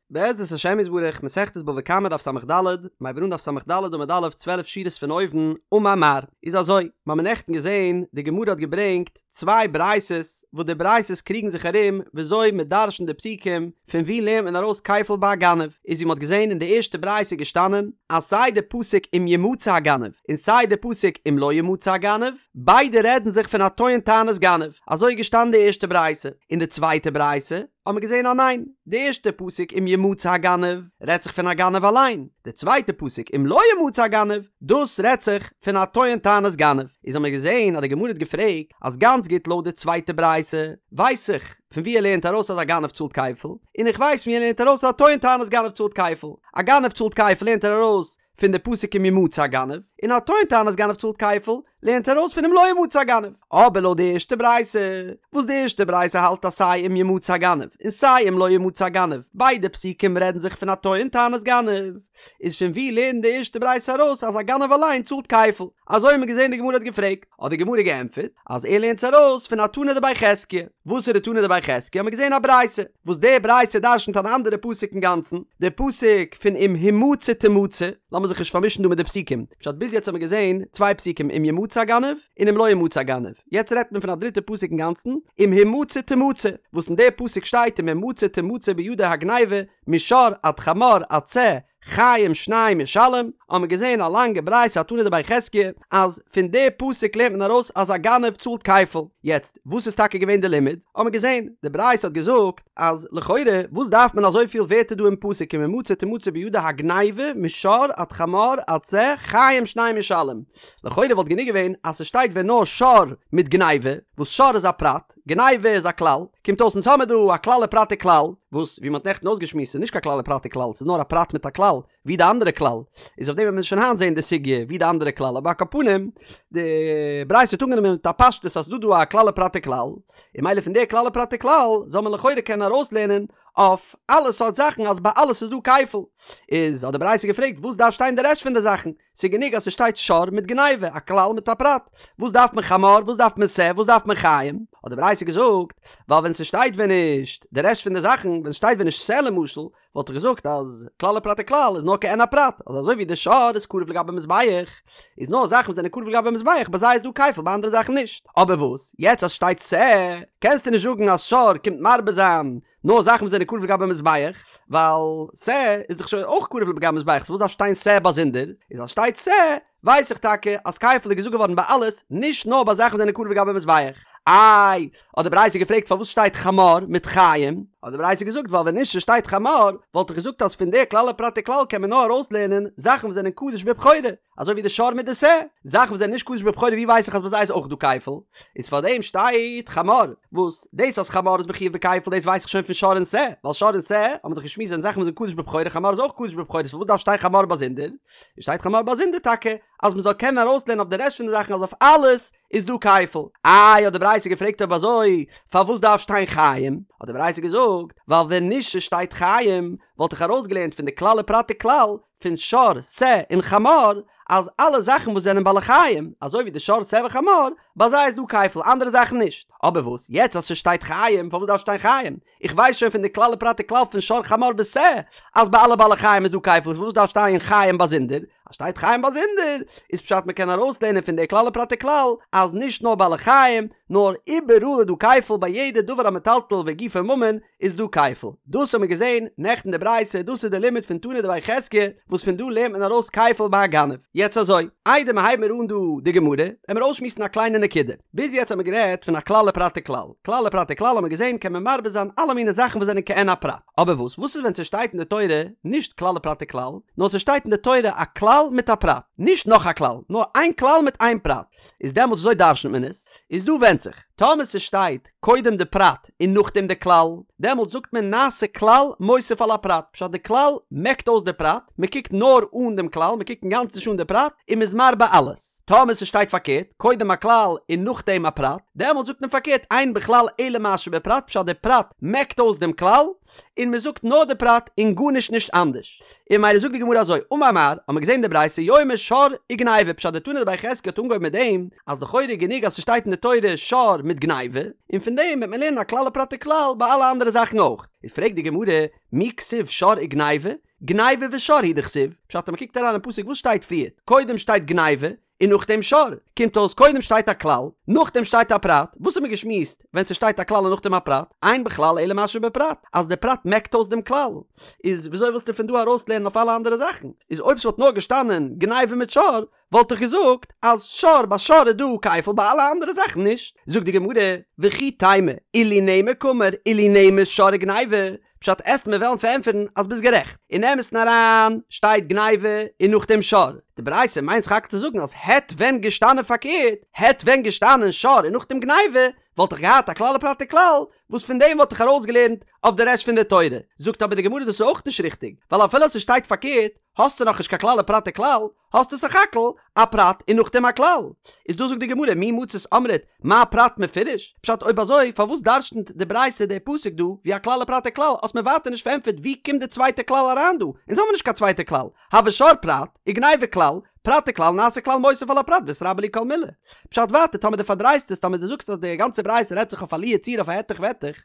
בעזרת השם יתברך, מסכת בבא קמא דף ס"ד, מ'הייבט אן דף ס"ד עמוד א', 12 שורות פון אויבן, אמר מר. איז אזוי, מ'האמיר נעכטן געזען, די גמרא האט געברענגט צוויי ברייתות, וואס די ברייתות קריגן זיך ארום וויאזוי מ'דרש'נט די פסוקים, פון וואו לערנט מען ארויס כפל ביי א גנב, איז ווי מ'האט געזען אין די ערשטע ברייתא איז געשטאנען, אז סיי די פסוק אם ימצא הגנב, און סיי די פסוק אם לא ימצא הגנב, ביידע רעדן זיך פון א טוען טענת גנב, אזוי איז געשטאנען די ערשטע ברייתא, אין די צווייטע ברייתא, האט מען געזען אז ניין, די ערשטע פסוק אם ימצא הגנב רעדט זיך פון א גנב אליין, די צווייטע פסוק אם לא ימצא הגנב דאס רעדט זיך פון א טוען טענת גנב, איז האט מען געזען אז די גמרא האט געפרעגט אז גאנץ גוט לויט די צווייטע ברייתא ווייס איך פון ווי ער לערנט ארויס אז א גנב צאלט כפל, און איך ווייס פון ווי ער לערנט ארויס אז א טוען טענת גנב צאלט כפל, א גנב צאלט כפל לערנט ער ארויס פון די פסוק אם ימצא הגנב, און א טוען טענת גנב צאלט כפל, לערנט ער ארויס פון אם לא ימצא הגנב. אבער לויט די ערשטע ברייתא, וואס די ערשטע ברייתא האלט אז סיי אם ימצא הגנב און סיי אם לא ימצא הגנב, ביידע פסוקים רעדן זיך פון א טוען טענת גנב, איז פון וואו לערנט די ערשטע ברייתא ארויס אז א גנב אליין צאלט כפל? אזוי האט מען געזען די גמרא האט געפרעגט, האט די גמרא געענטפערט אז ער לערנט עס ארויס פון א תנא דבי חזקיה. וואסערע תנא דבי חזקיה האט מען געזען א ברייתא, וואס די ברייתא דרשנ'ט אן אנדערע פסוק אינגאנצן, די פסוק פון אם המצא תמצא, לאמיר זיך נישט פארמישן דא מיט די פסוקים, פשט ביז יעצט האט מען געזען צוויי פסוקים אם ימצא הגנב און אם לא ימצא הגנב, יעצט רעדט מען פון א דריטע פסוק אינגאנצן, אם המצא תמצא, וואס אין די פסוק שטייט אם המצא תמצא בידו הגניבה משור עד חמור עד שה חיים שניים ישלם, האט מען געזען א לאנגע ברייתא א תנא דבי חזקיה אז פון די פסוק לערנט מען ארויס אז א גנב צאלט כפל, יעצט וואס איז טאקע געווען די לימוד? האט מען געזען די ברייתא האט געזאגט אז לכאורה וואס דארף מען אזויפיל ווערטער דא אין פסוק אם המצא תמצא בידו הגניבה משור עד חמור עד שה חיים שניים ישלם, לכאורה וואלט גענוג געווען אז ס'שטייט ווען נאר שור מיט גניבה, וואס שור איז א פרט, גניבה איז א כלל, קומט אויס אונז האמיר דא א כלל ופרט וכלל, וואס ווי מ'האט נעכטן אויסגעשמועסט איז נישט קיין כלל ופרט וכלל, ס'איז נאר א פרט מיט א כלל, ווי די אנדערע כלל, איז אויף דעם וועט מען שוין היינט זעהן די סוגיא ווי די אנדערע כלל, אבער על כל פנים, די ברייתא האט אנגענומען מיט א פשטות אז ס'איז דא דא א כלל ופרט וכלל, און ממילא פון די כלל ופרט וכלל זאל מען לכאורה קענען ארויסלערנען אויף אלע סארט זאכן אז ביי אלעס איז דא כפל. איז האט די ברייתא געפרעגט וואס דארף שטיין די רעשט פון די זאכן? ס'איז גענוג אז ס'שטייט שור מיט גניבה, א כלל מיט א פרט. וואס דארף מען חמור? וואס דארף מען שה? וואס דארף מען חיים? האט די ברייתא געזאגט, ווייל ווען ס'שטייט ווען נישט די רעשט פון די זאכן, ווען ס'שטייט ווען נישט שה למשל, וואלט איך געזאגט אז כלל ופרט וכלל איז נאר כעין הפרט, אז אזוי ווי די שור איז קרב לגבי מזבח, איז נאר זאכן וואס זענען קרב לגבי מזבח, ביי זיי איז דא כפל ביי אנדערע זאכן נישט. אבער וואס? יעצט אז ס'שטייט שה, קענסטו נישט זאגן אז שור קומט מרבה זיין נאר זאכן וואס זענען קרב לגבי מזבח, ווייל שה איז דאך שוין אויך קרב לגבי מזבח, סאו וואס דארף שטיין שה באזונדער? איז אז שטייט שה, ווייס איך טאקע אז כפל איז געזאגט געווארן ביי אלעס, נישט נאר ביי זאכן וואס זענען קרב לגבי מזבח. איי, האט די ברייתא געפרעגט פארוואס שטייט חמור מיט חיים? האט די ברייתא געזאגט ווייל ווען נישט ס'שטייט חמור, וואלט איך געזאגט אז פון די כלל ופרט וכלל קען מען נאר ארויסלערנען זאכן וואס זענען קדוש בבכורה, אזוי ווי די שור מיט די שה, זאכן וואס זענען נישט קדוש בבכורה ווי ווייס איך אז ביי זיי איז אויך דא כפל? איז פאר דעם שטייט חמור, וואס דאס אז חמור איז מחויב בכפל דאס ווייס איך שוין פון שור און שה, ווייל שור און שה האבן מיר דאך געשמועסט זענען זאכן וואס זענען קדוש בבכורה חמור איז אויך קדוש בבכורה סאו פארוואס דארף שטיין חמור באזונדער? איז שטייט חמור באזונדער טאקע אז מען זאל קענען ארויסלערנען אויף די רעשט פון די זאכן אז אויף אלעס איז דא כפל. איי האט די ברייתא געפרעגט אויב אזוי פארוואס דארף שטיין חיים? האט די ברייתא געזאגט ווייל ווען נישט ס'שטייט חיים וואלט איך ארויסגעלערנט פון די כלל ופרט וכלל פון שור, שה און חמור, אז אלע זאכן וואס זענען בעלי חיים, אזוי ווי די שור, שה וחמור, ביי זיי איז דא כפל, אנדערע זאכן נישט. אבער וואס, יעצט אז ס'שטייט חיים, פארוואס דארף שטיין חיים? איך ווייס שוין פון די כלל ופרט וכלל פון שור חמור ושה, אז ביי אלע בעלי חיים איז דא כפל, פארוואס דארף שטיין חיים באזונדער? אז שטייט חיים באזונדער, איז פשט מ'קען ארויסלערנען פון די כלל ופרט וכלל, אז נישט נאר בעלי חיים, נאר איבעראל איז דא כפל ביי יעדע דבר המטלטל וגופו ממון, איז דא כפל. דאס האבן מיר געזען נעכטן די ברייתא, דאס איז די לימוד פון תנא דבי חזקיה, וואס פון דא לערנט מען ארויס כפל ביי א גנב. יעצט אזוי, איידער מיר הייבן מיר אן דא די גמרא, עמיר אויסשמועסן א קליינע נקודה. ביז יעצט האבן מיר גערעדט פון א כלל ופרט וכלל. כלל ופרט וכלל האבן מיר געזען קען מען מרבה זיין אלע מיני זאכן וואס זענען כעין הפרט. אבער וואס וואס איז ווען ס'שטייט אין די תורה נישט כלל ופרט וכלל, נאר ס'שטייט אין די תורה א כלל מיט א פרט. נישט נאך א כלל, נאר איין כלל מיט איין פרט. איז דעמאלטס וויאזוי דרש'נט מען עס? איז דא ווענדט זיך. טאמער ס'שטייט קודם די פרט און נאכדעם די כלל, דעמאלטס זאגט מען נעשה כלל מוסיף על הפרט, פשט די כלל מעקט אויס די פרט, מען קוקט נאר אן דעם כלל, מען קוקט אינגאנצן נישט אן די פרט, און מען איז מרבה אלעס. טאמער ס'שטייט פארקערט, קודם א כלל און נאכדעם א פרט, דעמאלט זאגט מען פארקערט אין בכלל אלא מה שבפרט פשט די פרט מעקט אויס דעם כלל, און מ'זאגט נאר די פרט און גארנישט נישט אנדערש. און ממילא זאגט די גמרא אזוי, אמר מר, האט מען געזען די ברייתא יאמר שור וגניבה פשט די תנא דבי חזקיה האט אנגעהויבן מיט דעם אז לכאורה איז גענוג אז ס'שטייט אין די תורה שור מיט גניבה, און פון דעם וועט מען לערנען א כלל ופרט וכלל ביי אלע אנדערע זאכן אויך. איז פרעגט די גמרא, מי כתיב שור וגניבה? גניבה ושור הוא דכתיב, פשט אז מ'קוקט אריין אין פסוק וואס שטייט פריער? קודם שטייט גניבה און נאכדעם שור, קומט אויס קודם שטייט א כלל, נאכדעם שטייט א פרט, וואס האט מען געשמועסט ווען ס'שטייט א כלל און נאכדעם א פרט? אין בכלל אלא מה שבפרט, אז די פרט מעקט אויס דעם כלל, איז וויאזוי ווילסטו פון דא ארויסלערנען אויף אלע אנדערע זאכן? איז אויב ס'וואלט נאר געשטאנען גניבה מיט שור, וואלט איך געזאגט אז שור ביי שור איז דא כפל ביי אלע אנדערע זאכן נישט. זאגט די גמרא, וכי תימא, אילו נאמר קאמר, אילו נאמר שור וגניבה, פשט עסט מיר וועלן פארענטפערן אז ביסט גערעכט, אין אמת'ן אריין שטייט גניבה און נאכדעם שור, די ברייתא מיינט סך הכל צו זאגן אז העט ווען געשטאנען פארקערט, העט ווען געשטאנען שור און נאכדעם גניבה, וואלט איך געהאט א כלל ופרט וכלל, וואס פון דעם וואלט איך ארויסגעלערנט אויף די רעשט פון די תורה. זאגט אבער די גמרא דאס איז אויך נישט ריכטיג, ווייל אפילו אז ס'שטייט פארקערט, האסטו נאכנישט קיין כלל ופרט וכלל, האסטו סך הכל א פרט און נאכדעם א כלל. איז דא זאגט די גמרא מי מצית אמרת מה פרט מפורש? פשט אויב אזוי פארוואס דרש'נט די ברייתא די פסוק דא ווי א כלל ופרט וכלל האסט מיר ווייטער נישט פארענטפערט ווי קומט די צווייטע כלל אריין דא? אונז האבן נישט קיין צווייטע כלל, הוי שור פרט, וגניבה כלל, פרט וכלל נעשה כלל מוסיף על הפרט ואיתרבו להו כל מילי. פשט ווייטער טאמער דו פארדרייסט עס טאמער דו זאגסט אז די גאנצע ברייתא רעדט זיך אויף א לו יצויר אויף א העטעך וועטעך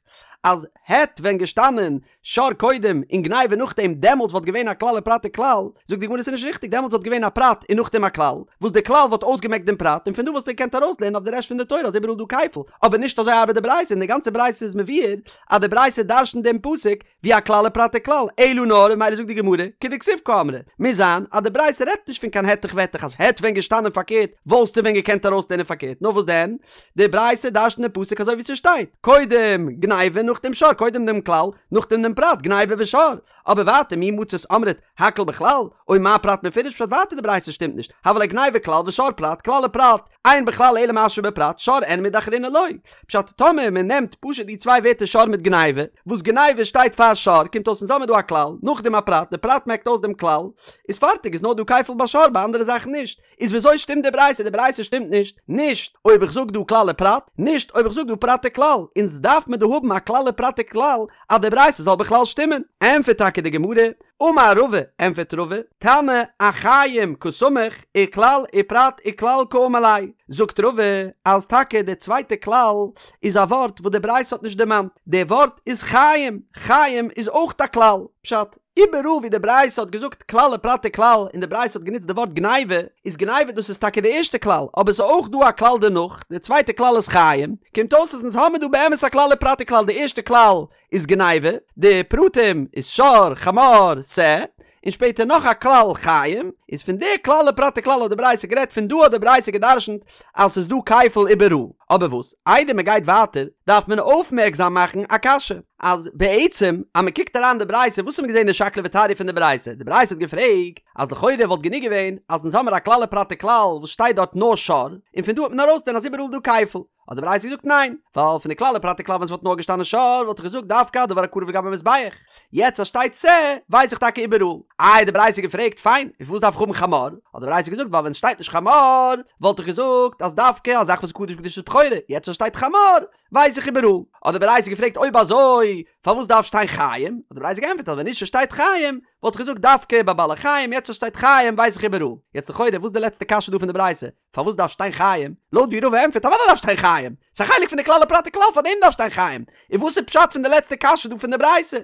אז העט ווען געשטאנען שור קודם און גניבה נאכדעם דעמאלטס וואלט געווען א כלל ופרט וכלל, זאגט די גמרא ס'איז נישט ריכטיג דעמאלטס וואלט געווען א פרט און נאכדעם א כלל, וואס די כלל וואלט אויסגעמעקט דעם פרט און פון דא וואלסטו געקענט ארויסלערנען אויף די רעשט פון די תורה אז איבעראל דא כפל, אבער נישט אזוי ארבעט די ברייתא און די גאנצע ברייתא איז מבואר אז די ברייתא דרש'נט דעם פסוק ווי א כלל ופרט וכלל, אלא נאר און ממילא זאגט די גמרא כדכתיב קאמרה, מוז זיין אז די ברייתא רעדט נישט פון קיין העטעך וועטעך אז העט ווען געשטאנען פארקערט וואלסטו ווען געקענט ארויסלערנען פארקערט נאר וואס דען די ברייתא דרש'נט דעם פסוק אזוי ווי ס'שטייט, קודם גניבה נאכדעם שור, קודם דעם כלל, נאכדעם דעם פרט, גניבה ושור. אבער ווייטער מי מצית אמרת הכל בכלל, או מה פרט מפורש פשט ווייטער די ברייתא שטימט נישט, הוה ליה גניבה כלל ושור פרט, כלל ופרט, אין בכלל אלא מה שבפרט, שור אין מידי אחרינא לא. פשט, טאמער מען נעמט פשוט די צוויי ווערטער שור מיט גניבה, וואס גניבה שטייט פאר שור, קומט אויס אונז האמיר דא א כלל, נאכדעם א פרט, די פרט מעקט אויס דעם כלל, איז פארטיג איז נאר דא כפל ביי שור ביי אנדערע זאכן נישט. איז וויאזוי שטימט די ברייתא? די ברייתא שטימט נישט, נישט אויב איך זאג דא כלל ופרט, נישט אויב איך זאג דא פרט וכלל, אונז דארף מען דא האבן א כלל ופרט וכלל אז די ברייתא זאל בכלל שטימען. ענטפערט טאקע די גמרא, אמר רבא, ענטפערט רבא, תנא אחיים קסמיך וכלל ופרט וכלל קאמר ליה, זאגט רבא אז טאקע די צווייטע כלל איז א ווארט וואס די ברייתא האט נישט דערמאנט, די ווארט איז חיים, חיים איז אויך א כלל, פשט, איבעראל ווי די ברייתא האט געזאגט כלל ופרט וכלל און די ברייתא האט גענוצט די ווארט גניבה, איז גניבה דאס איז טאקע די ערשטע כלל, אבער ס'איז אויך דא א כלל דערנאך, די צווייטע כלל איז חיים, קומט אויס אז אונז האמיר דא באמת א כלל ופרט וכלל, די ערשטע כלל איז גניבה, די פרטים איז שור, חמור, שה, און שפעטער נאך א כלל חיים, איז פון די כלל ופרט וכלל האט די ברייתא גערעדט, פון דא האט די ברייתא גע'דרש'נט אז ס'איז דא כפל איבעראל. אבער וואס, איידער מ'גייט ווייטער, דארף מען אויפמערקזאם מאכן א קשיא. אז בעצם אז מען קוקט אריין די ברייתא וואס האט מען געזען די שקלא וטריא פון די ברייתא? די ברייתא האט געפרעגט אז לכאורה וואלט גענוג געווען אז אונז האמיר א כלל ופרט וכלל וואס שטייט דארט נאר שור און פון דא האט מען ארויסגעלערנט אז איבעראל דא כפל האט די ברייתא געזאגט ניין ווייל פון די כלל ופרט וכלל ווען ס'וואלט נאר געשטאנען שור וואלט איך געזאגט דווקא דבר הקרב לגבי מזבח יעצט אז שטייט שה ווייס איך טאקע איבעראל. איי די ברייתא געפרעגט פיין און פארוואס דארף איך האבן חמור? האט די ברייתא געזאגט ווייל ווען ס'שטייט נישט חמור וואלט איך געזאגט אז דווקא א זאך וואס איז קדוש בקדושת בכורה יעצט אז שטייט חמור ווייס איך איבעראל. האט די ברייתא געפרעגט אויב אזוי פארוואס דארף שטיין חיים? האט די ברייתא געענטפערט אז ווען נישט שטייט חיים וואלט איך געזאגט דווקא ביי בעלי חיים יעצט אז שטייט חיים ווייס איך איבעראל. יעצט לכאורה וואס איז די לעצטע קשיא דא פון די ברייתא? פארוואס דארף שטיין חיים? לויט ווי רבא ענטפערט אוודאי דארף שטיין חיים! ס'איז א חלק פון די כלל ופרט וכלל פארדעם דארף שטיין חיים! און וואס איז פשט פון די לעצטע קשיא דא פון די ברייתא?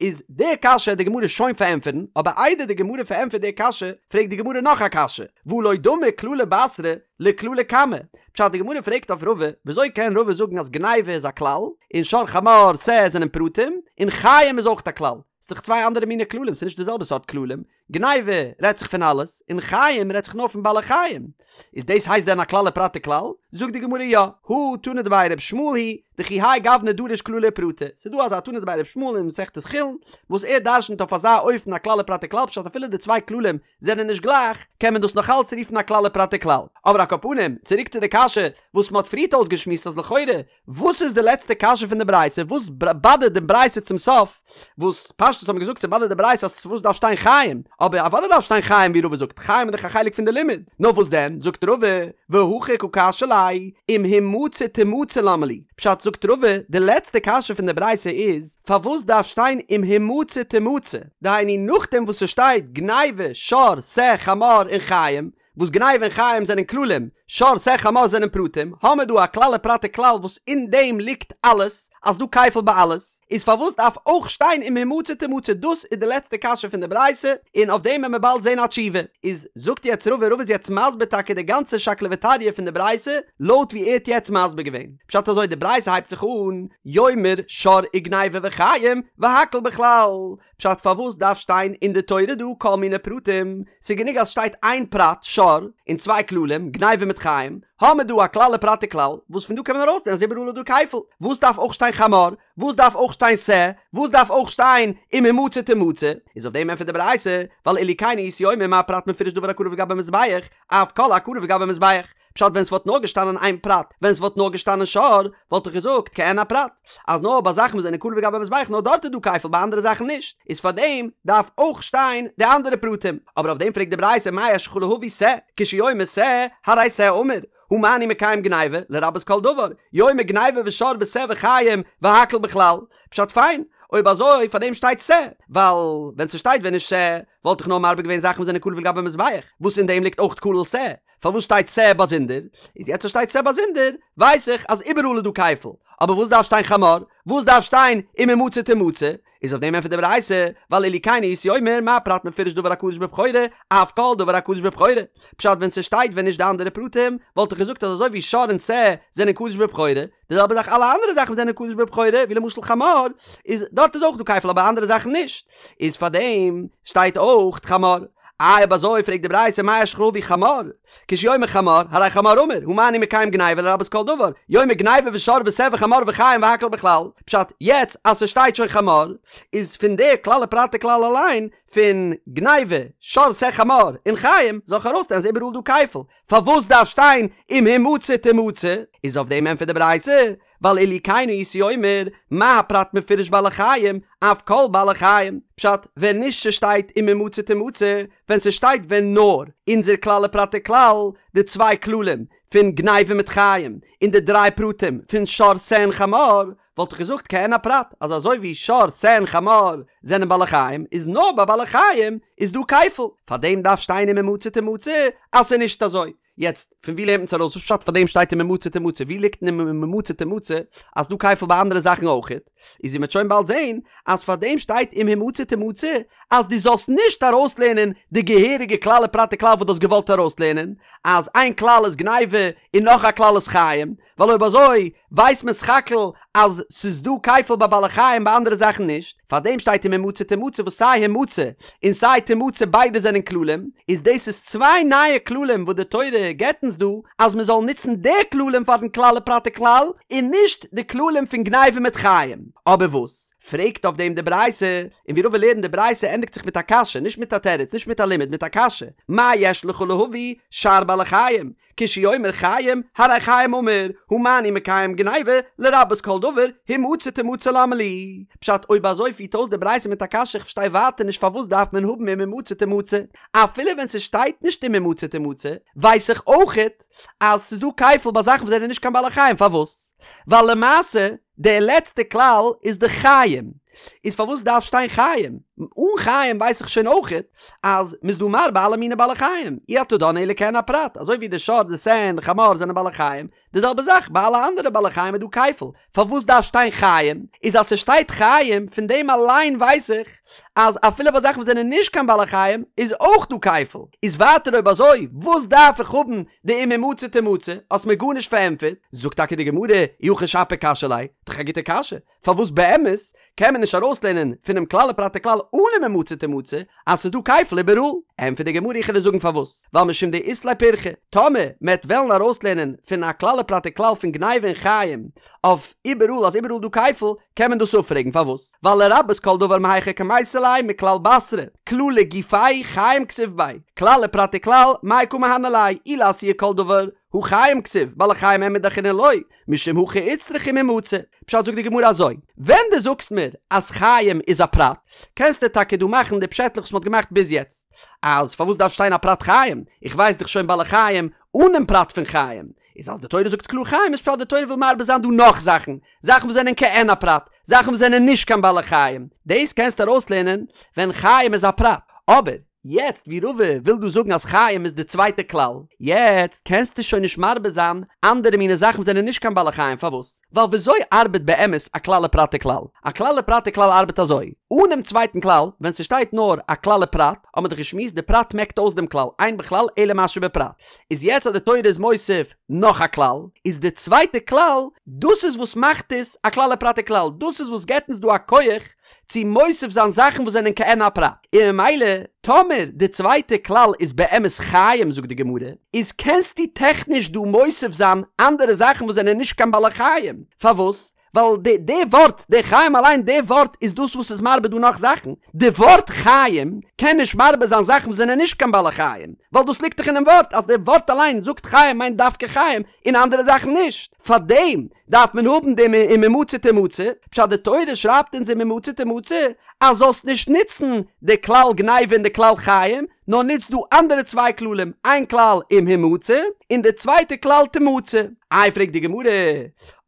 איז די קשיא די גמרא שוין פארענטפערן, אבער איידער די גמרא פארענטפערט די קשיא פרעגט די גמרא נאך א קשיא, והא לא דמי כללא בתרא לכללא קמא, פשט די גמרא פרעגט אויף רבא, וויאזוי קען רבא זאגן אז גניבה איז א כלל, און שור חמור שה זענען פרטים, און חיים איז אויך א כלל? ס'איז דאך צוויי אנדערע מיני כללים, ס'איז נישט די זעלבע סארט כללים, גניבה רעדט זיך פון אלעס, און חיים רעדט זיך נאר פון בעלי חיים. איז דאס הייסט דען א כלל ופרט וכלל? זאגט די גמרא יא, הא תנא דבי ר' ישמעאל היא, דכי האי גוונא דריש כללי ופרטי, ס'איז דא אזא תנא דבי ר' ישמעאל אין מסכת חולין, וואס ער דרשנ'ט אויף אזא אופן א כלל ופרט וכלל פשט אפילו די צוויי כללים זענען נישט גלייך, קען מען דאס נאך אלץ רופן א כלל ופרט וכלל. אבער על כל פנים, צוריק צו די קשיא וואס מ'האט פריערט אויסגעשמועסט אז לכאורה וואס איז די לעצטע קשיא פון די ברייתא? וואס באדערט די ברייתא צום סוף? וואס פשטות האט מען געזאגט ס'באדערט די ברייתא אז וואס דארף שטיין חיים? אבער אוודאי דארף שטיין חיים ווי רבא זאגט, חיים איז דאך א חלק פון די לימוד. נאר וואס דען? זאגט רבא, והכי קא קשיא ליה, אם המצא תמצא למה לי? פשט זאגט רבא, די לעצטע קשיא פון די ברייתא איז, פארוואס דארף שטיין אם המצא תמצא? דהיינו נאכדעם וואס ס'שטייט גניבה, שור, שה, חמור און חיים, וואס גניבה און חיים זענען כללים, שור שה חמור זענען פרטים, האמער דא א כלל ופרט וכלל וואס אין דעם ליגט אלעס, אז דא כפל ביי אלעס, איז פארוואס דארף אויך שטיין אם המצא תמצא דאס איז די לעצטע קשיא פון די ברייתא, און אויף דעם וועלן מיר באלד זען א תשובה. איז זאגט יעצט רבא, רבא איז יעצט מסביר טאקע די גאנצע שקלא וטריא פון די ברייתא, לויט ווי ער האט יעצט מסביר געווען. פשט אזוי די ברייתא הייבט זיך אן, יאמר שור וגניבה וחיים, והכל בכלל, פשט פארוואס דארף שטיין אין די תורה דא כל מיני פרטים, ס'איז גענוג אז שטייט איין פרט שור און צוויי כללים גניבה מיט חיים, האמער דא א כלל ופרט וכלל, וואס פון דא קען מען ארויסלערנען אז איבעראל איז דא כפל, וואס דארף אויך שטיין חמור, וואס דארף אויך שטיין שה, וואס דארף אויך שטיין אם המצא תמצא, איז אויף דעם ענטפערט די ברייתא, ווייל אילו כן הייתי אומר מה פרט מפורש דבר הקרב לגבי מזבח, אף כל הקרב לגבי מזבח. פשט ווען ס'וואלט נאר געשטאנען איין פרט, ווען ס'וואלט נאר געשטאנען שור, וואלט איך געזאגט כעין הפרט, אז נאר ביי זאכן וואס זענען קרב לגבי מזבח נאר דארט איז דא כפל ביי אנדערע זאכן נישט, איז פארדעם דארף אויך שטיין די אנדערע פרטים, אבער אויף דעם פרעגט די ברייתא מה יש לך להביא שה, כשהוא אומר שה, הרי שה אמור, הא מה אני מקיים גניבה, לרבות כל דבר, יאמר גניבה ושור ושה וחיים, והכל בכלל, פשט פיין, אויב אזוי פארדעם שטייט שה, ווייל ווען ס'שטייט ווען נישט שה, וואלט איך נאר מרבה געווען זאכן וואס זענען קרב לגבי מזבח, וואס אין דעם ליגט אויך כולל שה, פארוואס שטייט שה באזונדער? איז יעצט אז שטייט שה באזונדער ווייס איך אז איבעראל איז דא כפל, אבער וואס דארף שטיין חמור? וואס דארף שטיין אם המצא תמצא? איז אויף דעם ענטפערט די ברייתא, ווייל אילו כן הייתי אומר מה פרט מפורש דבר הקדוש בבכורה, אף כל דבר הקדוש בבכורה. פשט ווען ס'שטייט ווען נישט די אנדערע פרטים, וואלט איך געזאגט אז אזוי ווי שור און שה זענען קדוש בבכורה, די זעלבע זאך אלע אנדערע זאכן וואס זענען קדוש בבכורה, ווי למשל חמור, איז דארט איז אויך דא כפל אבער אנדערע זאכן נישט, איז פארדעם שטייט אויך חמור. איי אויב אזוי פרעגט די ברייתא מה יש לך להביא חמור, כשהוא אומר חמור, הרי חמור אמור, הא מה אני מקיים גניבה לרבות כל דבר, יאמר גניבה ושור ושה וחמור וחיים והכל בכלל, פשט, יעצט אז ס'שטייט שוין חמור, איז פון די כלל ופרט וכלל אליין, פון גניבה, שור שה חמור, און חיים, זאל איך ארויסלערנען אז איבעראל דא כפל, פארוואס דארף שטיין אם המצא תמצא? איז אויף דעם ענטפערט די ברייתא, ווייל אילו כן הייתי אומר, מה הפרט מפורש בעלי חיים, אף כל בעלי חיים. פשט, ווען נישט ס'שטייט אם המצא תמצא, ווען ס'שטייט ווען נאר אונזער כלל ופרט וכלל, די צוויי כללים פון גניבה מיט חיים, און די דריי פרטים פון שור שה און חמור, וואלט איך געזאגט כעין הפרט, אז אזוי ווי שור, שה און חמור זענען בעלי חיים, איז נאר ביי בעלי חיים איז דא כפל, פארדעם דארף שטיין אם המצא תמצא אז ס'איז נישט אזוי. יעצט, פון ווי לערנט מען עס ארויס? וואס פשט פארדעם שטייט אם המצא תמצא? ווי ליגט אין אם המצא תמצא אז ס'דא כפל ביי אנדערע זאכן אויכעט? איז ווי מ'וועט שוין באלד זען, אז פארדעם שטייט אם המצא תמצא אז דו זאלסט נישט ארויסלערנען די געהעריגע כלל ופרט וכלל וואס דו האסט געוואלט ארויסלערנען, אז איין כלל איז גניבה און נאך א כלל איז חיים, ווייל אויב אזוי ווייסט מען סך הכל אז ס'איז דא כפל ביי בעלי חיים ביי אנדערע זאכן נישט, פארדעם שטייט אם המצא תמצא וואס סיי המצא און סיי תמצא ביידע זענען כללים, איז דאס איז צוויי נייע כללים וואס די תורה געבט אונז דא אז מען זאל נוצן די כללים פארן כלל ופרט וכלל און נישט די כללים פון גניבה מיט חיים. אבער וואס? פרעגט אויף דעם די ברייתא, און ווי רבא לערנט די ברייתא ענדיגט זיך מיט א קשיא, נישט מיט א תירוץ, נישט מיט א לימוד, מיט א קשיא, מה יש לך להביא שאר בעלי חיים, כשהוא אומר חיים, הרי חיים אמור, הא מה אני מקיים גניבה, לרבות כל דבר, המצא תמצא למה לי. פשט, אויב אזוי פירט אויס די ברייתא מיט א קשיא איך פארשטיי ווייטער נישט פארוואס דארף מען האבן אם המצא תמצא, אפילו ווען ס'שטייט נישט אם המצא תמצא, ווייס איך אויכעט אז ס'איז דא כפל ביי זאכן וואס זענען נישט קיין בעלי חיים, פארוואס? ווייל למעשה די לעצטע כלל איז די חיים, איז פארוואס דארף שטיין חיים? אן חיים ווייס איך שוין אויכעט אז מ'איז דא מרבה אלע מיני בעלי חיים, אי אתה דן אלא כעין הפרט, אזוי ווי די שור די שה און די חמור זענען בעלי חיים, די זעלבע זאך ביי אלע אנדערע בעלי חיים איז דא כפל, פארוואס דארף שטיין חיים? איז אז ס'שטייט חיים פון דעם אליין ווייס איך אז אפילו ביי זאכן וואס זענען נישט קיין בעלי חיים איז אויך דא כפל, איז ווייטער אויב אזוי וואס דארף איך האבן די אם המצא תמצא, האסט מיר גארנישט פארענטפערט, זאגט טאקע די גמרא, אי הכי שפיר קשיא ליה, דאך א גוטע קשיא, פארוואס באמת קען מען נישט ארויסלערנען פונעם כלל ופרט וכלל אן אם המצא תמצא אז ס'איז דא כפל איבעראל. ענטפערט די גמרא איך וועל דיר זאגן פארוואס, ווייל משום דאית ליה פירכא, טאמער מ'עט וועלן ארויסלערנען פון א כלל ופרט וכלל פון גניבה און חיים אויף איבעראל אז איבעראל דא כפל, קען מען דאס אפפרעגן פארוואס? ווייל לרבות כל דבר מהיכא קמייתי ליה מכלל בתרא, כללא גופיה חיים כתיב ביה, כלל ופרט וכלל מאי קא מהני ליה, אי לאתויי כל דבר, הא חיים כתיב, בעלי חיים אין מידי אחרינא לא, משום הכי איצטריך אם המצא. פשט זאגט די גמרא אזוי, ווען דו זאגסט מיר אז חיים איז א פרט, קענסטו טאקע דא מאכן די פשעטלעך וואס מ'האט געמאכט ביז יעצט, אז פארוואס דארף שטיין א פרט חיים, איך ווייס דאך שוין בעלי חיים אן דעם פרט פון חיים, איז אז די תורה זאגט קלאר חיים איז פשט די תורה וויל מרבה זיין דא נאך זאכן, זאכן וואס זענען כעין הפרט, זאכן וואס זענען נישט קיין בעלי חיים, דאס קענסטו ארויסלערנען ווען חיים איז א פרט, אבער יעצט ווי רבא וויל דא זאגן אז חיים איז די צווייטע כלל, יעצט קענסטו שוין נישט מרבה זיין אנדערע מיני זאכן וואס זענען נישט קיין בעלי חיים, פארוואס? ווייל וויאזוי ארבעט באמת א כלל ופרט וכלל? א כלל ופרט וכלל ארבעט אזוי, אן דעם צווייטן כלל, ווען ס'שטייט נאר א כלל ופרט, האט מען דאך געשמועסט די פרט מעקט אויס דעם כלל, אין בכלל אלא מה שבפרט. איז יעצט אז די תורה איז מוסיף נאך א כלל, איז די צווייטע כלל, דאס איז וואס מאכט עס א כלל ופרט וכלל, דאס איז וואס געבט אונז דא א כח צו מוסיף זיין זאכן וואס זענען כעין הפרט, און ממילא טאמער די צווייטע כלל איז באמת חיים זאגט די גמרא, איז קענסטו טעכניש דא מוסיף זיין אנדערע זאכן וואס זענען נישט קיין בעלי חיים, פארוואס? ווייל די די ווארט די חיים אליין די ווארט איז דאס וואס איז מרבה דא נאך זאכן, די ווארט חיים קען נישט מרבה זיין זאכן וואס זענען נישט קיין בעלי חיים, ווייל דאס ליגט דאך אינעם ווארט אז די ווארט אליין זאגט חיים מיינט דווקא חיים און אנדערע זאכן נישט, פארדעם דארף מען האבן דעם אם המצא תמצא, פשט די תורה שרייבט אונז אם המצא תמצא אז זאלסט נישט נוצן די כלל גניבה און די כלל חיים, נאר נוץ דא אנדערע צוויי כללים, איין כלל אם המצא, און די צווייטע כלל תמצא. איי פרעגט די גמרא,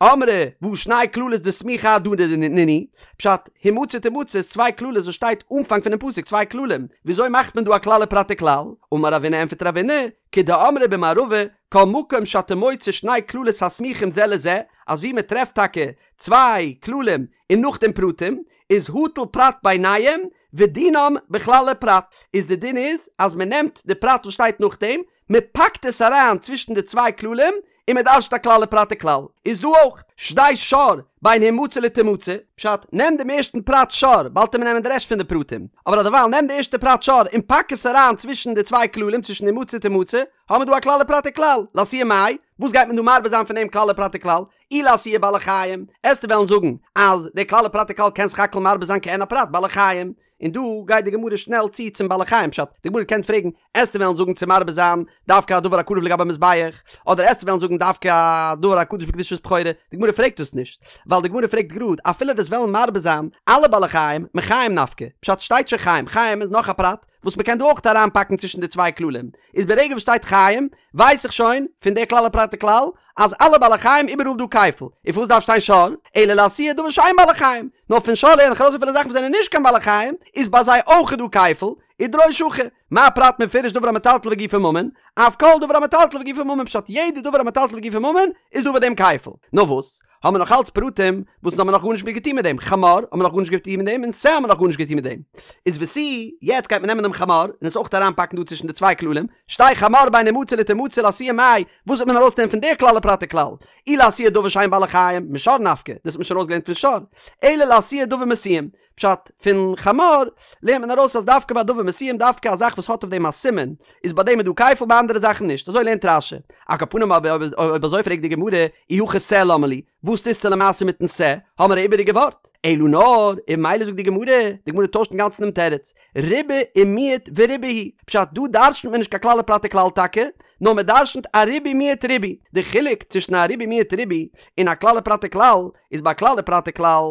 אמרי והא שני כללות דסמיכי אהדדי נינהו, פשט, המצא תמצא איז צוויי כללות וואס שטייט אנפאנג פונעם פסוק צוויי כללים, וויאזוי מאכט מען דא א כלל ופרט וכלל? אמר רבינא ענפערט רבינא, כדאמרי במערבא, כל מקום שאתה מוצא שני כללות הסמוכים זה לזה, אז ווי מען טרעפט טאקע צוויי כללים און נאכדעם פרטים, איז הטל פרט ביניהם ודינם בכלל ופרט, איז די דין איז אז מען נעמט די פרט וואס שטייט נאכדעם, מען פאקט עס אריין צווישן די צוויי כללים, און מען דרש'ט א כלל ופרט וכלל. איז דא אויך שדי שור בין המצא לתמצא, פשט, נעם דעם ערשטן פרט שור, באלד וועט מען נעמען די רעשט פון די פרטים, אבער אדערווייל נעם די ערשטע פרט שור און פאק עס אריין צווישן די צוויי כללים צווישן המצא תמצא, האמיר דא א כלל ופרט וכלל, לאתויי מאי, וואס גייט מען דא מרבה זיין פון דעם כלל ופרט וכלל? אי לאתויי בעלי חיים, עסטו וועלן זאגן אז דער כלל ופרט וכלל קען סך הכל מרבה זיין כעין הפרט בעלי חיים, און דא גייט די גמרא שנעל צו צום בעלי חיים פשט, די גמרא קען פרעגן, עסטו וועלן זאגן צו מרבה זיין דווקא א דבר הקרב לגבי מזבח, אדער עסטו וועלן זאגן דווקא א דבר הקדוש בקדושת בכורה, די גמרא פרעגט דאס נישט, ווייל די גמרא פרעגט גראד, אפילו דו'סט וועלן מרבה זיין אלע בעלי חיים, מחיים נפקא, פשט שטייט שוין חיים, חיים איז נאך א פרט, וואס מ'קען דא אויך אריינפאקן צווישן די צוויי כללים, איז ברגע וואס שטייט חיים, ווייס איך שוין, פון די כלל ופרט וכלל, אז אלע בעלי חיים איבעראל דא כפל, און פארוואס דארף שטיין שור, אלא לאתויי דבר שאין בעלי חיים, נאר פון שור לערן איך ארויס אפילו זאכן וואס זענען נישט קיין בעלי חיים, איז ביי זיי אויך דא כפל, ודרוש הכי, מה פרט מפורש דבר המטלטל וגופו ממון, אף כל דבר המטלטל וגופו ממון פשט יעדע דבר המטלטל וגופו ממון איז דא ביי דעם כפל. נאר וואס? האבן מיר נאך אלץ פרטים וואס אונז האבן נאך גארנישט מיט געטון מיט דעם, חמור האבן מיר נאך גארנישט געטון מיט דעם און שה האבן מיר נאך גארנישט געטון מיט דעם. איז ותו, יעצט גייט מען נעמען דעם חמור און עס אויך אריינפאקן דא צווישן די צוויי כללים, שדי חמור בין המצא לתמצא לאתויי מאי, וואס וועט מען ארויסנעמען פון דער כלל ופרט וכלל? אי לאתויי דבר שאין בעלי חיים, משור נפקא, דאס האט מען שוין ארויסגעלערנט פון שור, אלא לאתויי דבר מסוים, פשט, פון חמור לערנט מען ארויס אז דווקא ביי דבר מסוים דווקא א זאך וואס האט אויף דעם א סימן איז ביי דעם איז דא כפל ביי אנדערע זאכן נישט, אזוי לערנט רש"י. על כל פנים אבער אויב אזוי פרעגט די גמרא אי הכי שה למה לי, וואס טוסטו למעשה מיטן שה, האמער א איבעריגע ווארט? אלא נאר, און ממילא זאגט די גמרא, די גמרא טוישט אינגאנצן דעם תירוץ, ריבה ומיעט וריבה הוא, פשט דא דרשנ'ט מען נישט קיין כלל ופרט וכלל טאקע, נאר מען דרשנ'ט א ריבוי מיעוט ריבוי, די חילוק צווישן א ריבוי מיעוט ריבוי און א כלל ופרט וכלל, איז ביי כלל ופרט וכלל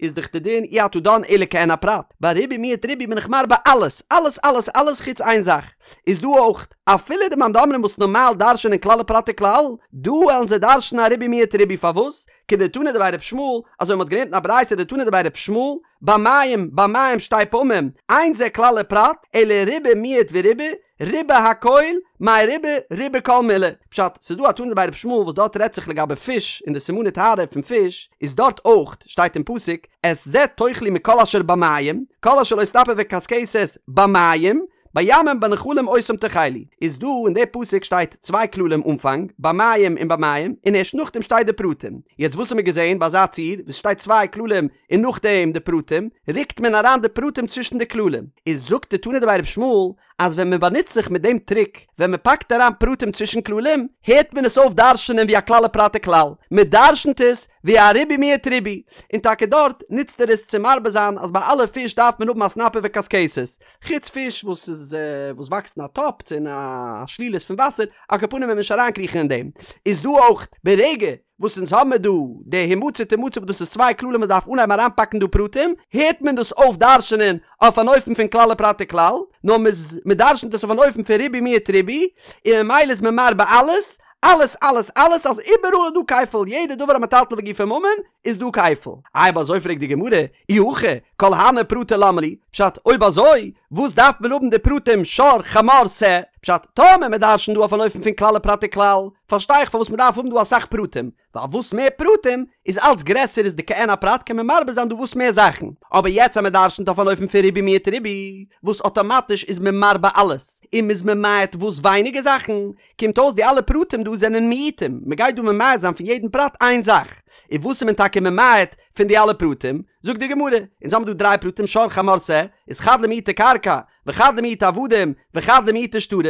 איז דאך די דין אי אתה דן אלא כעין הפרט, ביי ריבוי מיעוט ריבוי בין איך מרבה אלעס, אלעס אלעס אלעס חוץ איין זאך, איז דא אויך אפילו די מאן דאמרים וואס נארמאל דרש'נען כלל ופרט וכלל, דא וועלן זיי דרש'נען א ריבוי מיעוט ריבוי פארוואס? כדתנא דבי ר' ישמעאל, אזוי מ'האט געלערנט אין א ברייתא דתנא דבי ר' ישמעאל, במים, במים שתי פעמים, אין זה כלל ופרט, אלא ריבה מיעט וריבה, ריבה הכל, מאי ריבה, ריבה כל מילי. פשט, ס'איז דא א תנא דבי ר' ישמעאל וואס דארט רעדט זיך לגבי פיש און די סימני טהרה פון פיש, איז דארט אויך שטייט אין פסוק, את זה תאכלו מכל אשר במים, כל אשר לא סנפיר וקשקשת במים, בימים בנחלים אותם תאכלו, איז דא אין די פסוק שטייט צוויי כללים אנפאנג, במים און במים, און ערשט נאכדעם שטייט די פרטים. יעצט וואס האמיר געזען ביי אזא ציור וואס שטייט צוויי כללים און נאכדעם די פרטים, רוקט מען אריין די פרטים צווישן די כללים. איז זאגט די תנא דבי רבי ישמעאל אז ווען מען באנוצט זיך מיט דעם טריק, ווען מען פאקט אריין פרטים צווישן כללים, הערט מען עס אויף דרש'נען ווי א כלל ופרט וכלל, מען דרש'נט עס ווי א ריבוי מיעוט ריבוי, און טאקע דארט נוצט ער עס צו מרבה זיין אז ביי אלע פיש דארף מען האבן א סנפיר וקשקשת, חוץ פיש וואס איז וואס וואקסט אין א טאפ צו אין א שלולית פון וואסער, על כל פנים וועט מען נישט אריינקריכן אין דעם, איז דא אויך ברגע וואס אונז האמיר דא די המצא תמצא וואס דאס איז צוויי כללים מען דארף אנהייבן אריינפאקן דא פרטים, הערט מען דאס אויף דרש'נען אויף אן אופן פון כלל ופרט וכלל, נאר מ'איז מ'דרש'נט עס אויף אן אופן פון ריבוי מיעוט ריבוי, און ממילא איז מען מרבה אלעס, אלעס אלעס אלעס אז איבעראל איז דא כפל, יעדע דבר המטלטל וגופו ממון איז דא כפל. אויב אזוי פרעגט די גמרא, אי הכי כל הני פרטי למה לי, פשט אויב אזוי וואס דארף מען האבן די פרטים שור חמור שה, פשט טאמער מען דרש'נט דא אויף אן אופן פון כלל ופרט וכלל, פארשטיי איך פארוואס מען דארף האבן דא אסאך פרטים, ווייל וואס מער פרטים איז אלץ גרעסער איז די כעין הפרט קען מען מרבה זיין דא וואס מער זאכן, אבער יעצט אז מען דרש'נט אויף אן אופן פון ריבוי מיעוט ריבוי, וואס אטאמאטיש איז מען מרבה אלעס, און מ'איז ממעט וואס ווייניגער זאכן, קומט אויס די אלע פרטים דא זענען מיעוטים, מען גייט דא ממעט זיין פון יעדן פרט איין זאך, און וואס איז מען טאקע ממעט פון די אלע פרטים? זאגט די גמרא, אונז האבן דא דריי פרטים שור חמור שה, איז חד למעוטי קרקע, וחד למעוטי עבדים, וחד למעוטי שטרות,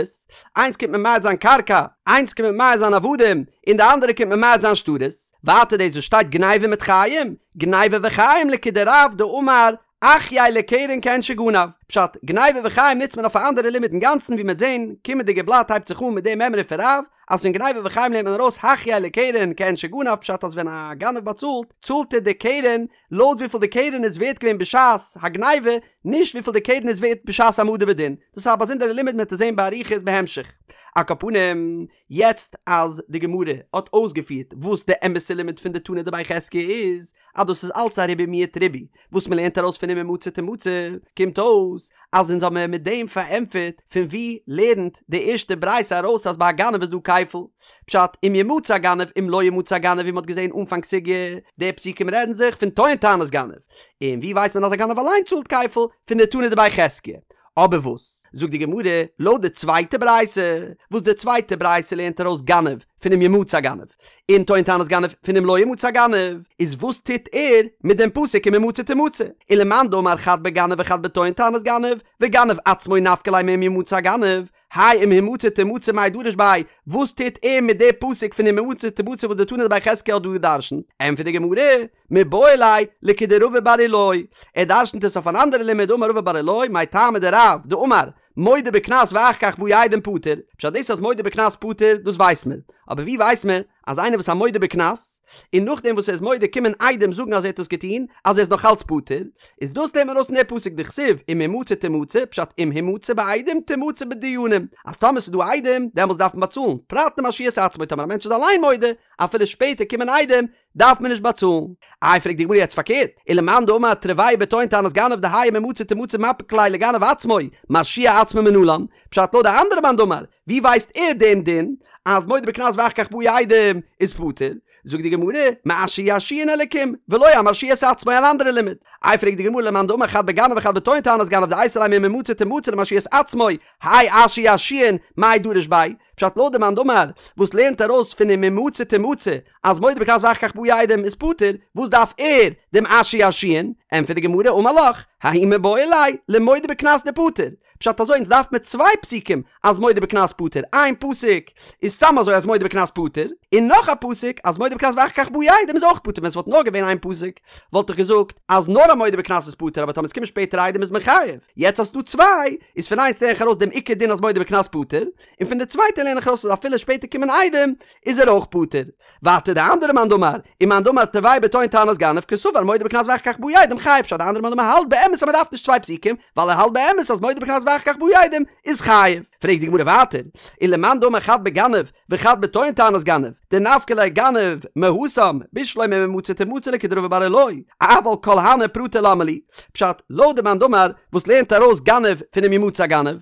איינס קומט ממעט זיין קרקע, איינס קומט ממעט זיין עבדים, און די אנדערע קומט ממעט זיין שטרות, ווייטער דאס וואס שטייט גניבה מיט חיים, גניבה וחיים לכדרב דאמר אחייה לקרן כעין שגנב, פשט, גניבה וחיים נוצט מען אויף א אנדערע לימוד אינגאנצן ווי מ'עט זען, קומענדיגע בלאט הייבט זיך אן מיט די מימרא פון רב, אז פון גניבה וחיים לערנט מען ארויס החייה לקרן כעין שגנב פשט אז ווען א גנב באצאלט, צאלט ער די קרן לויט וויפיל די קרן איז ווערט געווען בשעת הגניבה, נישט וויפיל די קרן איז ווערט בשעת העמדה בדין. דאס איז א באזונדערע לימוד מ'וועט עס זען באריכות בהמשך. על כל פנים, יעצט אז די גמרא האט אויסגעפירט וואס די אמת'ע לימוד פון די תנא דבי חזקיה איז, אז דאס איז אלץ א ריבוי מיעוט ריבוי, וואס מען לערנט ארויס פון אם המצא תמצא, קומט אויס אז אונז האבן מיט דעם פארענטפערט פון וואו לערנט די ערשטע ברייתא ארויס אז ביי א גנב איז דא כפל. פשט, אם ימצא הגנב אם לא ימצא הגנב ווי מען האט געזען אנפאנג סוגיא, די פסוקים רעדן זיך פון טוען טענת גנב, און ווי ווייסט מען אז א גנב אליין צאלט כפל? פון די תנא דבי חזקיה. אבער וואס זאגט די גמרא לויט די צווייטע ברייתא, וואס די צווייטע ברייתא לערנט ארויס גנב פון אם ימצא הגנב, און טוען טענת גנב פון אם לא ימצא הגנב, איז וואס טוט ער מיט דעם פסוק אם המצא תמצא? ולמאן דאמר חד בגנב וחד בטוען טענת גנב, וגנב עצמו נפקא ליה מאם ימצא הגנב, האי אם המצא תמצא מאי דריש ביה, וואס טוט ער מיט די פסוק פון אם המצא תמצא וואס די תנא דבי חזקיה האט דא גע'דרש'נט? ענטפערט די גמרא, מיבעי ליה לכדרבא בר אילעאי, ער דרש'נט עס אויף אן אנדערע לימוד דאמר רבא בר אילעאי מאי טעמא דרב דאמר מודה בקנס ואחר כך באו עדים פטור, פשט דאס אז מודה בקנס פטור דאס ווייסט מען, אבער ווי ווייסט מען אז איינער וואס א מודה בקנס און נאכדעם וואס ער איז מודה קומען עדים זאגן אז ער האט עס געטון אז ער איז נאך אלץ פטור, איז דאס לערנט מען ארויס פון די פסוק דכתיב אם המצא תמצא פשט אם המצא בעדים תמצא בדיינים אז טאמער ס'איז דא עדים דעמאלטס דארף מען באצאלן פרט למרשיע את עצמו טאמער א מענטש איז אליין מודה אפילו שפעטער קומען עדים דארף מען נישט באצאלן. איי פרעגט די גמרא יעצט פארקערט, ולמאן דאמר תרוייהו בטוען טענת גנב דהאי אם המצא תמצא מפיק ליה לגנב עצמו, מרשיע עצמו מנלן, פשט לויט די אנדערע מאן דאמר, ווי ווייסט ער דעם דין אז מודה בקנס ואחר כך באו עדים איז פטור? זאגט די גמרא, מאשר ירשיען אלקים, ולא אמרשיע את עצמו אן אנדערע לימוד. איי פרעגט די גמרא למאן דאמר חד בגנב וחד בטוען טענת גנב דאייתי ליה מאם המצא תמצא למרשיע את עצמו, האי אשר ירשיען מאי דריש ביה, פשט לויט די מאן דאמר וואס לערנט ארויס פון אם המצא תמצא אז מודה בקנס ואחר כך באו עדים איז פטור, וואס דארף ער דעם אשר ירשיען? ענטפערט די גמרא אמר לך, ההוא מיבעי ליה למודה בקנס דפטור, פשט אזוי אונז דארף מיר צוויי פסוקים אז מודה בקנס פטור, איין פסוק איז סתם אזוי אז מודה בקנס פטור, און נאך א פסוק אז מודה בקנס ואחר כך באו עדים איז אויך פטור, ווען ס'וואלט נאר געווען איין פסוק וואלט איך געזאגט אז נאר א מודה בקנס איז פטור אבער טאמער עס קומען שפעטער עדים איז מען חייב, יעצט אז ס'דא צוויי איז פון איינס לערן איך ארויס דעם עיקר דין אז מודה בקנס פטור, און פון די צווייטע לערן איך ארויס אז אפילו שפעטער קומען עדים איז ער אויך פטור. ווייטער די אנדערע מאן דאמר, ומאן דאמר תרוייהו בטוען טענת גנב קסבר מודה בקנס ואחר כך באו עדים חייב פשט די אנדערע מאן דאמר האלט באמת אז מ'דארף נישט צוויי פסוקים ווייל ער האלט באמת אז מודה בקנס ואחר כך באו עדים איז חייב. פרעגט די גמרא ווייטער, ולמאן דאמר חד בגנב וחד בטוען טענת גנב, דנפקא ליה גנב מהתם, בשלמא אם המצא תמצא לכדרבא בר אילעאי, אבל כל הני פרטי למה לי, פשט, לויט די מאן דאמר וואס לערנט ארויס גנב פון אם ימצא הגנב,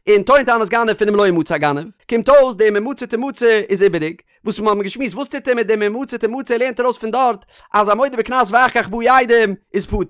און טוען טענת גנב פון אם לא ימצא הגנב, קומט אויס די אם המצא תמצא איז איבעריג, וואס מיר האבן געשמועסט וואס טוט ער מיט דעם אם המצא תמצא ער לערנט ארויס פון דארט אז א מודה בקנס ואחר כך באו עדים איז פטור,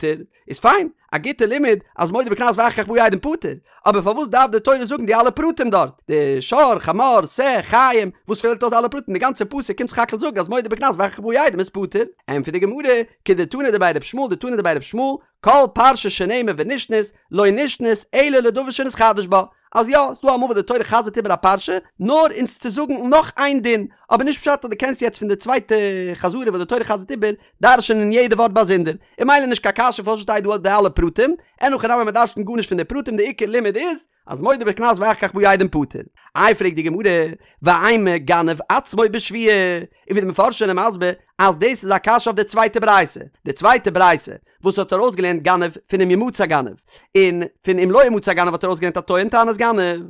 איז פיין, א גוטע לימוד אז מודה בקנס ואחר כך באו עדים פטור, אבער פארוואס דארף די תורה זאגן די אלע פרטים דארט, די שור, חמור, שה, חיים, וואס פעלט אויס אלע פרטים, די גאנצע פסוק קומט סך הכל זאגן אז מודה בקנס ואחר כך באו עדים איז פטור? ענטפערט די גמרא, כדתנא דבי ר' ישמעאל דתנא דבי ר' ישמעאל, כל פרשה שנאמרה ונשנית, לא נשנית אלא לדבר שנתחדש בה, אז יא, ס'דא אמאל וואס די תורה חזר'ט איבער א פרשה, נאר אונז צו זאגן נאך איין דין, אבער נישט פשט אז דו קענסט יעצט פון די צווייטע חזרה וואס די תורה חזר'ט איבער, דרש'ענען יעדע ווארט באזונדער, און ממילא נישט קיין קשיא פארוואס שטייט דא די אלע פרטים, אין הכי נמי מ'דרש'נט גארנישט פון די פרטים די עיקר לימוד איז אז מודה בקנס ואחר כך באו עדים פטור. איי פרעגט די גמרא, ואימא גנב עצמו בשבועה, און ווי די מפרשים זענען מסביר אז דאס איז א קשיא אויף די צווייטע ברייתא, די צווייטע ברייתא וואס האט ארויסגעלערנט גנב פון אם ימצא גנב, און פון אם לא ימצא גנב האט ארויסגעלערנט א טוען טענת גנב,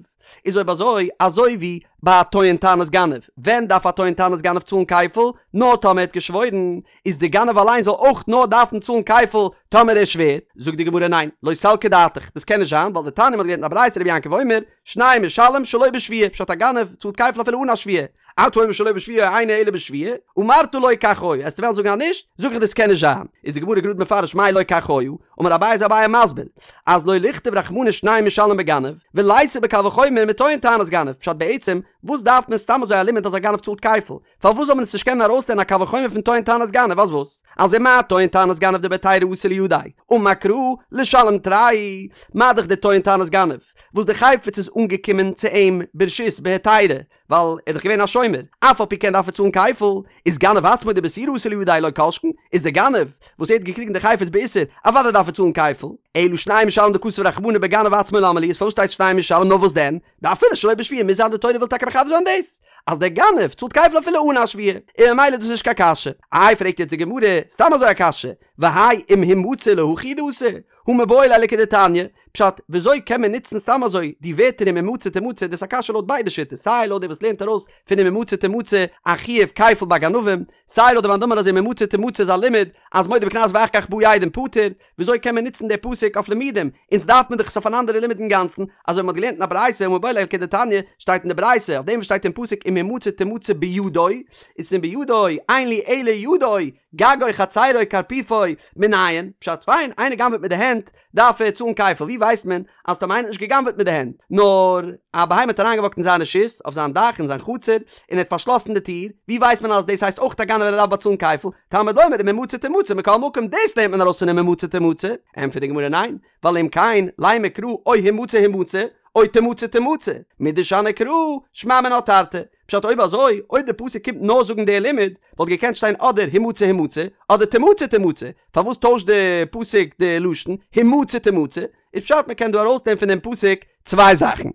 איז אויב אזוי, אזוי ווי ביי א טוען טענת גנב, ווען דארף א טוען טענת גנב צאלן כפל? נאר טאמער ער האט געשוואוירן, איז די גנב אליין זאל אויך נאר דארפן צאלן כפל טאמער ער שווערט? זאגט די גמרא ניין, לא סלקא דעתך, דאס קען נישט זיין, ווייל דתניא מ'האט געלערנט אין א ברייתא רבי יעקב אומר, שניים משלם שלא בשבועה, פשט א גנב צאלט כפל אפילו אן א שבועה, אתה אומר שלא בשבועה אינו אלא בשבועה, אמרת לא כך היה, עסטו וועלן זאגן אז נישט, זאג איך דאס קען נישט זיין, איז די גמרא גראד מפרש מאי לא כך היה, אמר אביי איז אביי מסביר, אז לא לכתוב רחמנא שניים משלם בגנב, וליתי בקל וחומר מטוען טענת גנב, פשט בעצם, וואס דארף מען סתם אזוי א לימוד אז א גנב צאלט כפל, פארוואס זאל מען עס נישט קענען ארויסלערנען א קל וחומר פון טוען טענת גנב אז וואס? אז ומה טוען טענת גנב דבהיתרא אתא לידיה, אמר קרא לשלם תרי, מה דאך די טוען טענת גנב, וואס די חפץ איז אנגעקומען צו אים ברשות בהיתרא, ווייל ער איז דאך געווען א שומר, אף על פי כן דארף ער צאלן כפל, איז גנב עצמו דבאיסורא אתא לידיה לא כל שכן, איז דער גנב וואס ער האט געקריגן די חפץ באיסור, אוודאי דארף ער צאלן כפל, אלא שניים משלם דכתב רחמנא בגנב עצמו למה לי, איז פארוואס שטייט שניים משלם נאר וואס דען, דאפילו שלא בשבועה מוז זיין די תורה וויל טאקע מחדש זיין דאס אז דער גנב צאלט כפל אפילו אן א שבועה, און ממילא איז דאס נישט קיין קשיא. איי פרעגט יעצט די גמרא, סתם אזוי א קשיא, והאי אם המצא להכי הוא דאתא, הא מיבעי ליה לכדתניא, פשט, וויאזוי קען מען נוצן סתם אזוי די ווערטער אם המצא תמצא, דאס איז א קשיא לויט ביידע שיטות, סיי לויט דער וואס לערנט ארויס פון אם המצא תמצא א חיוב כפל ביי גנבים, סיי לויט די מאן דאמר אז אם המצא תמצא איז א לימוד אז מודה בקנס ואחר כך באו עדים פטור, וויאזוי קען מען נוצן די פסוק אויף לימודים? אונז דארף מען דאך עס אויף אן אנדערע לימוד אינגאנצן, אזוי ווי מ'האט געלערנט אין א ברייתא הא מיבעי ליה לכדתניא, שטייט אין די ברייתא אויף דעם וואס שטייט אין פסוק אם המצא תמצא בידו, איז פון בידו, אין לי אלא ידו, גגו חצרו קרפיפו, מנין, פשט פיין, איינער גנב'עט מיט די הענט, דארף ער צאלן כפל, ווי ווייסט מען אז טאמער איינער האט נישט גע'גנב'עט מיט די הענט, נאר א בהמה האט אריינגעוואקט אין זיין רשות, אויף זיין דאך, אין זיין חצר, און ער האט פארשלאסן די טיר, ווי ווייסט מען אז דאס הייסט אויך א גנב און ער דארף באצאלן כפל, תלמוד לומר אם המצא תמצא מכל מקום, דאס לערנט מען ארויס פון אם המצא תמצא, ענטפערט די גמרא ניין, ווייל אם כן, לימא קרא או המצא המצא, או תמצא תמצא, מדשני קרא, שמע מינה תרתי, פשט אויב אזוי, אויב די פסוק קומט נאר זאגן די לימוד, וואלט געקענט שטיין אדער המצא המצא, אדער תמצא תמצא, פארוואס טוישט די פסוק די לשון, המצא תמצא, איז פשט מען קען דא ארויסנעמען פון דעם פסוק צוויי זאכן.